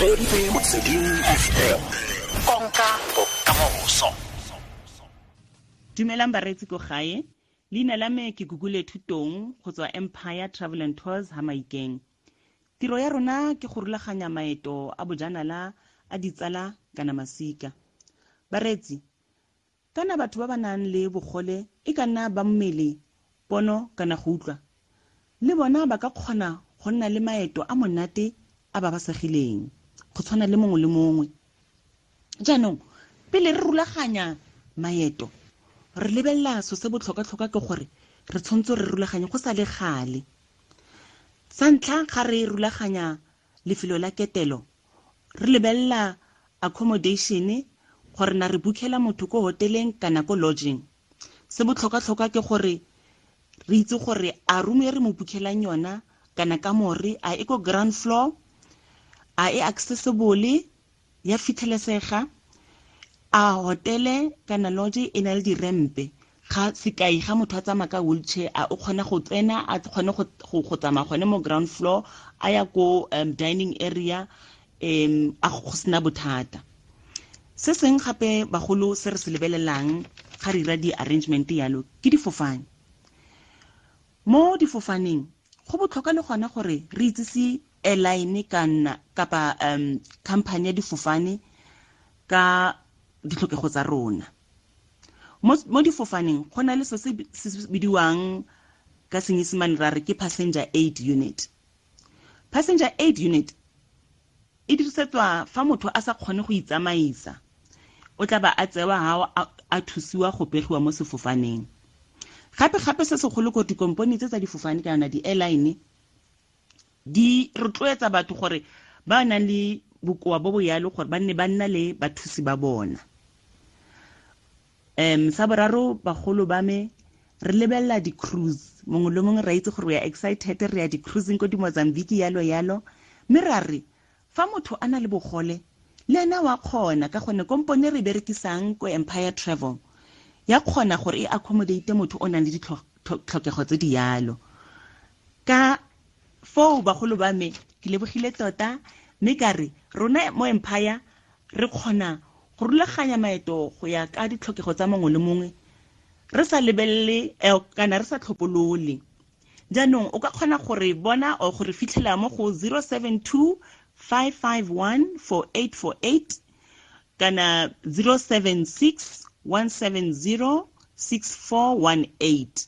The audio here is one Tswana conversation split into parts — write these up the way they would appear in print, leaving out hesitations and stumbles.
Reeditse Motsweding FM, konka bokamoso. Dumelang bareetsi ko gae. Leina la me ke Gugule Thutong go tswa Empire Travel and Tours ha Maikeng. Tiro ya rona ke go rulaganya maeto a bojanala a ditsala kana masika. Bareetsi, kana batho ba ba nang le bogole e ka nna ba mmele, pono kana go utlwa, le bona ba ka kgona go nna le maeto a monate a ba ba segileng go tshwana le mongwe le mongwe. Jaanong pele re rulaganya maeto, re lebelela so se botlhokwa-tlhokwa ke gore re tshwanetse re rulaganye go sa le gale. Sa ntlha, ga re rulaganya lefelo la ketelo, re lebelela accommodation, gore na re bookela motho ko hoteleng kana ko lodging. Se botlhokwa-tlhokwa ke gore re itse gore a room e re mo bookelang yona kana kamore a e ko ground floor, a e accessible, ya fitlhelesega, a hotele kana lodge e na le dirempe. Ga sekai, ga motho a tsamaya ka wheelchair, a o kgona go tsena, a kgone go tsamaya gone mo ground floor a ya ko dining area, a go sena bothata. Se seng gape bagolo se re se lebelelang ga re dira di-arrangement yalo ke difofane. Mo difofaneng go botlhokwa le gona gore re itsise airline kana kapa company ya difofane ka ditlhokego tsa rona. Mo difofaneng go na le se se bidiwang ka Senyesemane ra re ke passenger aid unit. Passenger aid unit e dirisetswa fa motho a sa kgone go itsamaisa, o tla ba a tsewa ha a thusiwa go pegiwa mo sefofaneng. Gape gape se segolo ko dikompone tse tsa difofane kana di-airline di rotloetsa batho gore ba nang le bokoa bo bo yalo gore ba nne ba nna le bathusi ba bona. Sa boraro, bagolo ba me, re lebelela di-cruise. Mongwe le mongwe ra itse gore we are excited, re ya di-cruising ko di-Mozambique yalo yalo, mme ra re fa motho a na le bogole le ena wa kgona, ka gonne kompone re berekisang ko Empire Travel ya kgona gore e accommodate motho o nang le ditlhokego tse di yalo. Ka foo bagolo ba me, ke lebogile tota, mme ka re rona mo Empire re kgona go rulaganya maeto go ya ka ditlhokego tsa mongwe le mongwe, re sa lebelele kana re sa tlhopolole. Jaanong o ka kgona gore bona or gore fitlhela mo go 072 551 4848 kana 076 170 6418.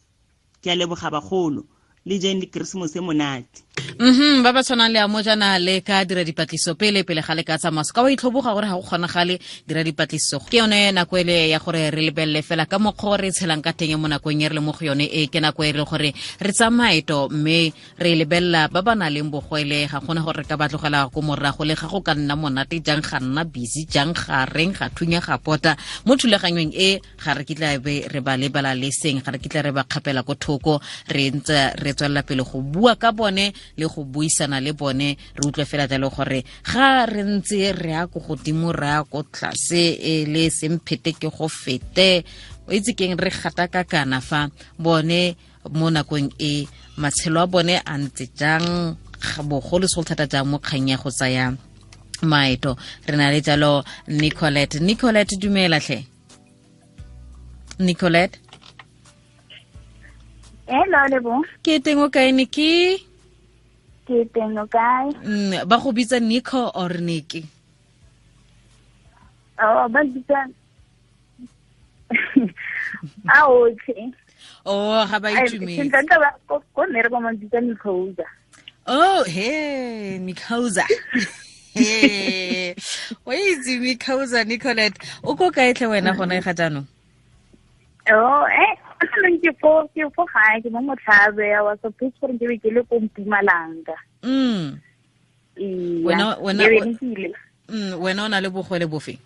Ke a leboga bagolo, le jeng le Keresemose monate. Ba ba tshwanang le amo jana le ka dira dipatlisiso pele pele ga le ka tsamaya. Se ka wa itlhoboga gore ga go kgonagale, dira dipatlisiso. Ke yone nako ele ya gore re lebelele fela ka mokgwa o re tshelang ka teng mo nakong e re le mo go yone e, ke nako e re gore re tsamaeto mme re lebelela ba ba nang le bogwele, ga gona gore re ka ba tlogela ko morago, le ga go ka nna monate jang, ga nna busy jang, ga reng ga thunya ga pota mo thulaganyong e, ga re kitla be re ba lebala le seng, ga re kitla re ba kgapela ko thoko. Re ntse re tswelela pele go bua ka bone le go buisana le bone, re utlwe fela jalo gore ga re ntse re ya ko godimo, re ya ko tlase, e le semphete ke go fete, o itse keng, re gatakakana fa bone mo nakong e matshelo a bone a ntse jang, bogolo segolo thata jang mo kgang ya go tsaya maeto. Re na le jalo Nicolette. Nicolette, dumela tlhe Nicolette. Hello, Lebo. Ke teng, o kae Niki? Ke teng, o kae? Ba go bitsa Nico or Niki? Oh, ba bitsa a otlhe. Oh, ga ba itumetse. Sentle ba ko mmereko ba bitsa Nicoza. Oh, he, Nicoza. He. O itse Nicoza, Nicolette. O ko kae tlhe wena gone ga jaanong? Oh, ke fo gae, ke mo Motlhabe. I was supposed gore ke be ke le ko Mpumalanga. Ee. Wena Ke be ke ile. Wena o na le bogole bofe?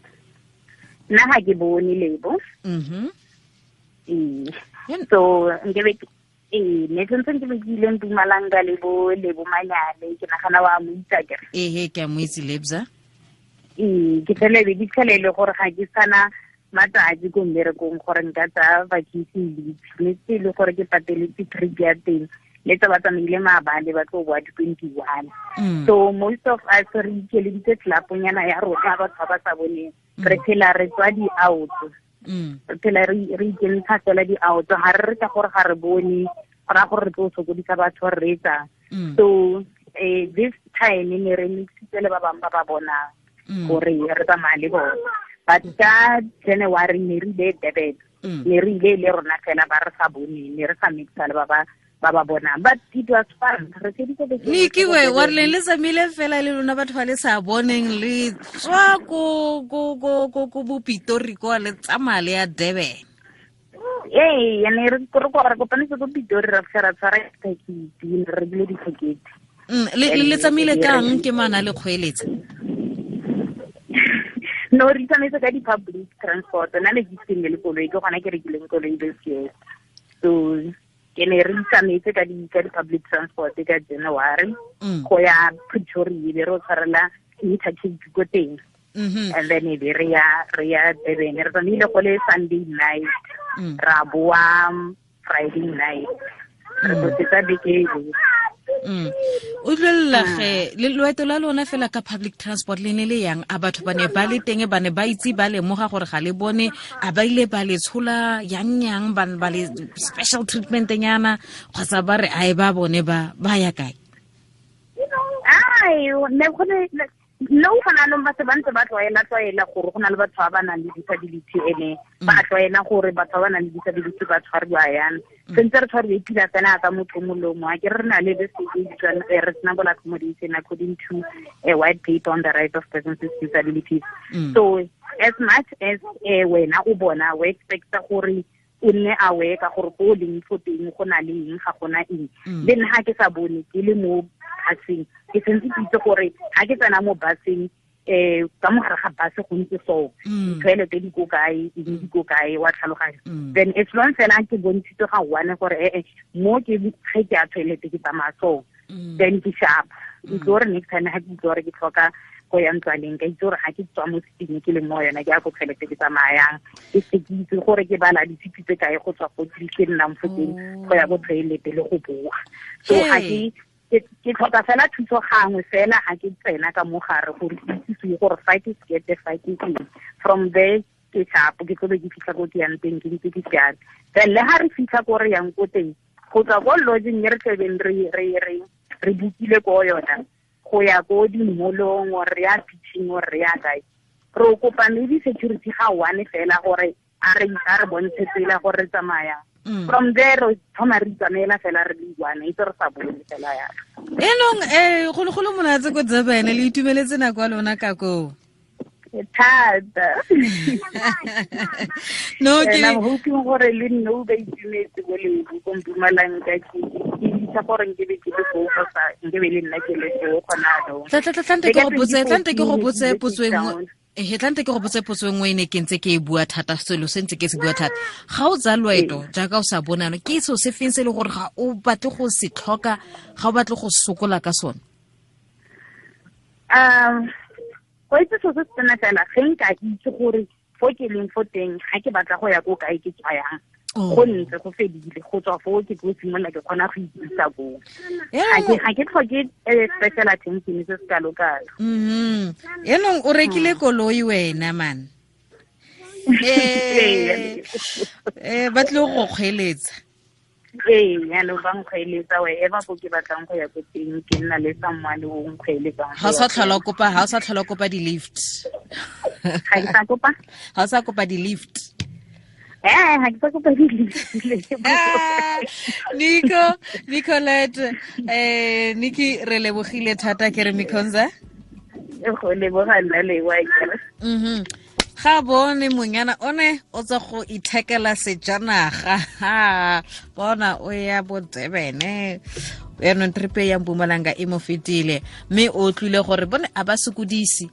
Nna ga ke bone, Lebo. Ee. So nke be ee, ne sentse ke be ke ile Mpumalanga le bo Lebo Manyane, ke nagana wa mo itse akere. Ehe, ke a mo itse Lebza. Ee, ke fele be ke tlhele le gore ga ke sana matsatsi ko mmerekong gore nka tsaya vacation leave, mme se e le gore ke pateletse trip ya teng. Le tsa ba tsamaile maabane ba tlo boa di-21. So most of us re ikeleditse clubnyana ya rona batho ba ba sa boneng. Re phela re tswa di-out. Re phela re ikentsha fela di-out. Ga re re ka gore ga re bone, go raya gore re tlo sokodisa batho re reetsang. So this time ne re mixitse le ba bangwe ba ba bonang gore re tsamaya le bone. But ka January ne re ile Durban. Ne re ile le rona fela ba re sa bone, ne re sa mixa le ba ba bonang. But it was fun. Re feditse beke. Niki we wa re le tsamaile fela le lona batho ba le sa boneng le tswa ko ko ko ko ko bopitori kwa le tsamaya le ya Durban. Ee, ne re re kopanetse ko Pitori ra fitlha ra tshwara tekete, ne re rekile ditekete. Le tsamaile kang ke mana le kgweeletsa? No, re tsamaetse ka di-public transport. Nna ne ke seng le koloi, ke gona ke rekileng koloi this year. So ke ne re tsamaetse ka di-public transport ka January go ya Pretoria, be re o tshwarela interchange ko teng. And then e be re ya Durban. Re tsamaile go le Sunday night, ra boa Friday night. Re tlosetsa beke e. O utlwelela ge le loeto la lona fela ka public transport le ne le yang, a batho ba ne ba le teng, ba ne ba itse ba lemoga gore ga le bone, a ba ile ba le tshola yang yang, ba le special treatment nyana, kgotsa ba re ae ba bone ba ya kae? Ai, ne go ne no gona anong ba se ba ntse ba tlwaela gore go na le batho ba ba nang le disability, ene ba tlwaela gore batho ba ba nang le disability ba tshwariwa yang. Sentse re tshwariwe pila fela ka motho molomo. A ke re na le this reasonable accommodation according to a white paper on the rights of persons with disabilities. So as much as wena o bona o expecta gore o nne aware ka gore ko o leng fo teng go na le eng, ga gona eng. Le nna ga ke sa bone ke le mo buseng, ke sentse ke itse gore ga ke tsena mo buseng ka mogare ga bus go ntse so, ditoilet di ko kae, eng di ko kae, wa tlhaloganya. Then as long fela ke bontshitswe ga one gore mo ke ge ke ya toilet ke tsamaya so, then ke sharp. Ke itse gore next time ga ke itse gore ke tlhoka go ya ntlwaneng, ka itse gore ga ke tswa mo seating ke leng mo yona, ke ya ko toilet ke tsamayang, ke se ke itse gore ke bala ditshipi tse kae go tswa go ke nnang fo teng go ya ko toilet le go boa. So ga ke tlhoka fela thuso gangwe fela ga ke tsena ka mogare gore ke itse gore fa ke sekete, fa ke eng. From there ke sharp, ke tlo be ke fitlha ko ke yang teng ke ntse ke siame. Then le ga re fitlha ko re yang ko teng, go tswa ko lodging e re tlebeng re bookile ko yona, go ya ko di-mall-ong or re ya beaching or re ya kae, re kopa maybe security ga one fela gore a re bontshe tsela gore re tsamaya. From there re thoma re tsamaela fela re le one, itse re sa bone fela ya. Enong go le monatse ko Durban, le itumeletse nako ya lona ka koo? Thata. No, ke I'm hoping gore le nne o ba itumetse ko le ko Mpumalanga, ke itse gore nke be ke le foo kgotsa nke be le nna ke le foo gona jaanong. Tla ke go botse potso e nngwe. Tlante ke go botse potso e nngwe e ne ke ntse ke e bua thata, selo se ntse ke se bua thata. Ga o tsaya loeto jaaka o sa bonano, ke seo se feng se e le gore ga o batle go se tlhoka, ga o batle go sokola ka sone? Go itse seo se tsena fela, ge nka itse gore fo ke leng fo teng, ga ke batla go ya ko kae ke tswa yang, go ntse go fedile, go tswa foo ke tlo simolola ke kgona go ikisa koo. Ga ke tlhoke special attention se se kalo-kalo. Enong o rekile koloi wena man. Ba tlile go kgweeletsa. Ee, jaanong ba nkgweeletsa wherever ko ke batlang go ya ko teng, ke nna le someone o nkgweeletsang. Ga o sa tlhola kopa, ga o sa tlhola kopa di-lift. Ga ke sa kopa? Ga o sa kopa di-lift. Ga ke sa kopa di-lift. Nico, Nicolette, Niki, re lebogile thata ke re Mikhonza. Go leboga nna le wa ke. Ga bone monyana one o tswa go ithekela sejanaga. Bona o ya bo Durban. Yaanong trip ya Mpumalanga e mo fetile, mme o tlile gore bone a ba sokodise.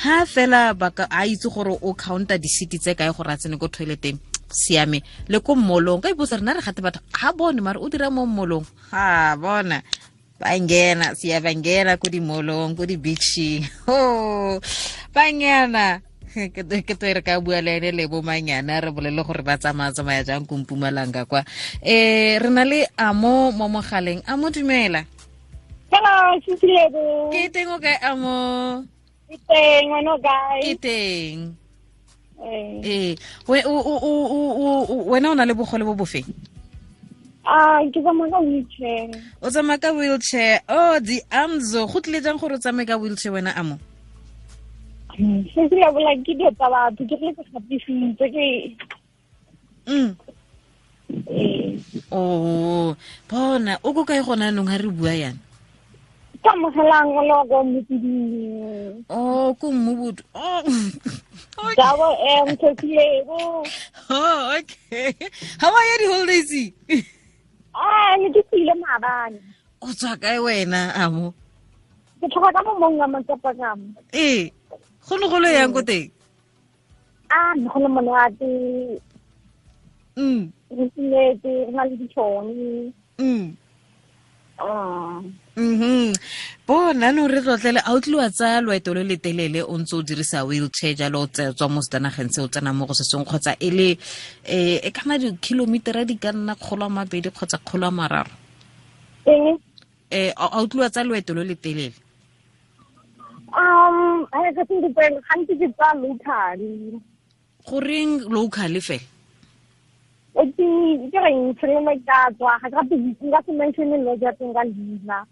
Ha fela ba ka a itse gore o counta di-city tse kae gore a tsene ko toileteng, siame. Le ko mmolong, ka ipotsa rena re gate batho ga bone mare o dira mo mmolong. Ha bona ba ngena, siya ba ngena ko di-mallong, ko di-beaching. Oh, ba ngena. Ke to re ka bua le ene le bo manyana re bolele gore ba tsamaya jang ko Mpumalanga kwa. Re na le Amo mo mogaleng. Amo, dumela. Hello, sisi Lebo. Ke teng o kae, Amo? Ke teng, wena o kae? Ke teng. Wena o na le bogole bo bofeng? Ke tsamaya ka wheelchair. O tsamaya ka wheelchair. Oh, di Amzo, go tlile jang gore o tsamaye ka wheelchair wena, Amo? Sisi Lebo, like ke dilo tsa batho, ke tle ke gapisitse ke. Oh, bona o ko kae gona nong ha re bua yana? Ka mogelang o le wa kwa Mmopoding. Oh, ko Mmobudu. Oh. Double M, Sisi Lebo. Oh, okay. How are you the holidays? Ne ke tsile maabane. O tswa kae wena, Amo? Ke tlhoka ka mo mong wa matsapa ka mo. Go ne go le yang ko teng? Ne go le monate. Re tsimetse, re na le ditšhono. Bona no re tlotlele a o tliwa tsa loeto le letelele o ntse o dirisa wheelchair jalo o tswa mo setanageng se o tsena mo go se sengwe kgotsa e le e kana di-kilometera di ka nna 200 kgotsa 300? A o tliwa tsa loeto le letelele? Gantsi ke tsa locally. Goreng locally fela? Ke reng tshelo ka tswa ga ke nka se mention lo ja teng ka leina.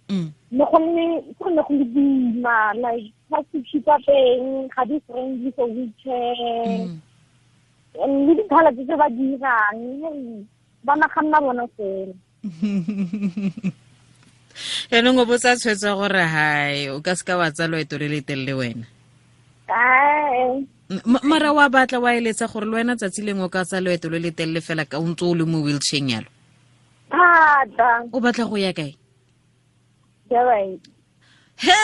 Ne go le go le boima, like taxi tsa teng ga di friendly for wheelchair. Le dikgala tse ba dirang ba naganna bona fela. Yaanong o botsa tshwetso gore hai o ka seka wa tsa loeto le letelele wena. Mara wa batla wa eletsa gore le wena tsatsi lengwe o ka tsa loeto le letelele fela ka o ntse o le mo wheelchair yalo? Thata. O batla go ya kae? Durban. Hey,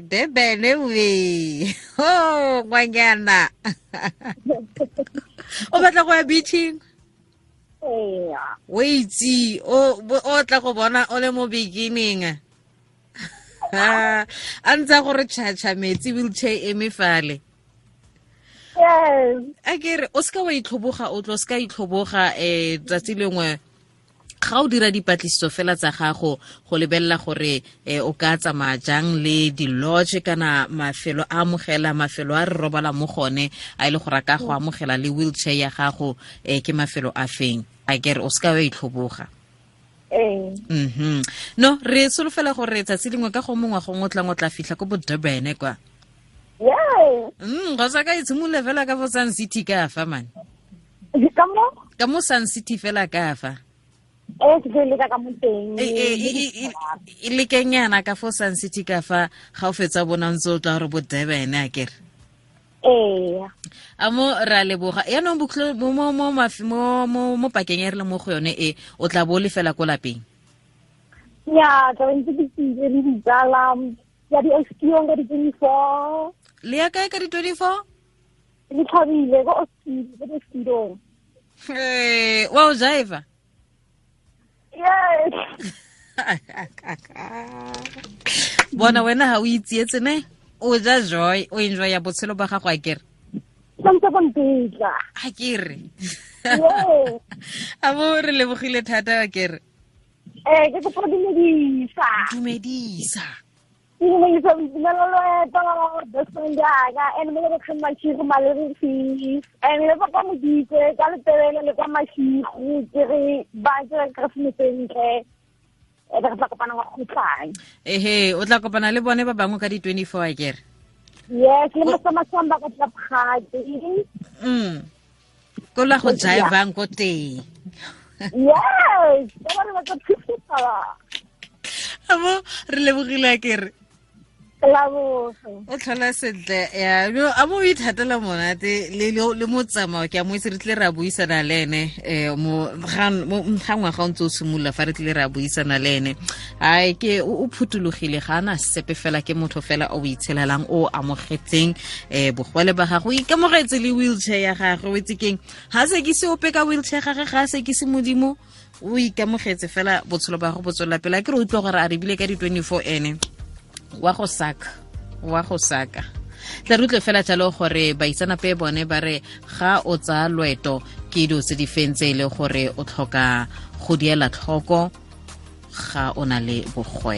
Durban we. Oh, ngwanyana. O batla go ya beaching? O itse o tla go bona o le mo beginning. A ntse gore tšhatšha metsi wheelchair eme fale. Yes. A ke re o seka wa itlhoboga, o tlo seka itlhoboga tsatsi lengwe ga o dira dipatlisiso fela tsa gago go lebelela gore o ka tsamaya jang le di-lodge kana mafelo a amogela, mafelo a re robala mo gone a e le gore a ka go amogela le wheelchair ya gago ke mafelo a feng. A ke re o seka wa itlhoboga. No, re solofela gore tsatsi lengwe ka go mongwe gongwe o tlang o tla fitlha ko bo Durban kwa. Yes. Go sa ka itshimolola fela ka fo Sun City ka fa man. Ka mo? Ka mo Sun City fela ka fa. Ke tlo leka ka mo teng. E lekenyana ka fo Sun City ka fa ga o fetsa bona ntse o tla gore bo Durban a kere. Amo ra leboga. Yaanong mo pakeng e re le mo go yone e o tla bo le fela ko lapeng? Ya, tla ntse ke tsile le ditsala ya di Oskiong ka di-24. Le ya kae ka di-24? Le thabile ko Oskidong. Wa o jiva? Yes. Bona wena ha o itsietse ne? O ja joy, o enjoy ya botshelo ba gago a kere? Santse go ntetla. A kere. A bo re lebogile thata a kere. Ke kopa dumedisa. Dumedisa. Ke dumedisa boitumelo loeto, best friend yaka, and mo le kgang Mashigo Malerifi, and le papa Moditse ka Letebele le kwa Mashigo, ke re ba ke Keresemose ntle. Re tla kopana wa kgotlang. Ehe, o tla kopana le bone ba bangwe ka di-24 a kere? Yes, le masamasamba ka Tlapgate. Ko la go jivang ko teng. Yes, ba re ba tla phutha. Amo re lebogile a kere. O tlhola sentle ya a mo ithatela monate le motsamao ke a mo itse re tle ra buisana le ene mo ga ngwaga o ntse o simolola fa re tle ra buisana le ene. Ai ke o phutulogile ga ana sepe fela, ke motho fela o itshelelang o amogetseng bogole ba gago, o ikamogetse le wheelchair ya gagwe. O itse keng, ga se ke se ope ka wheelchair gage, ga se ke se modimo, o ikamogetse fela botshelo ba go bo tswelela pele. A ke re utlwa gore a re bile ka di-24 ene wa go saka. Tla re utlwe fela jalo gore baitsanape bone ba re ga o tsaya loeto ke dilo tse di feng tse e le gore o tlhoka go diela tlhoko ga o na le bogwe.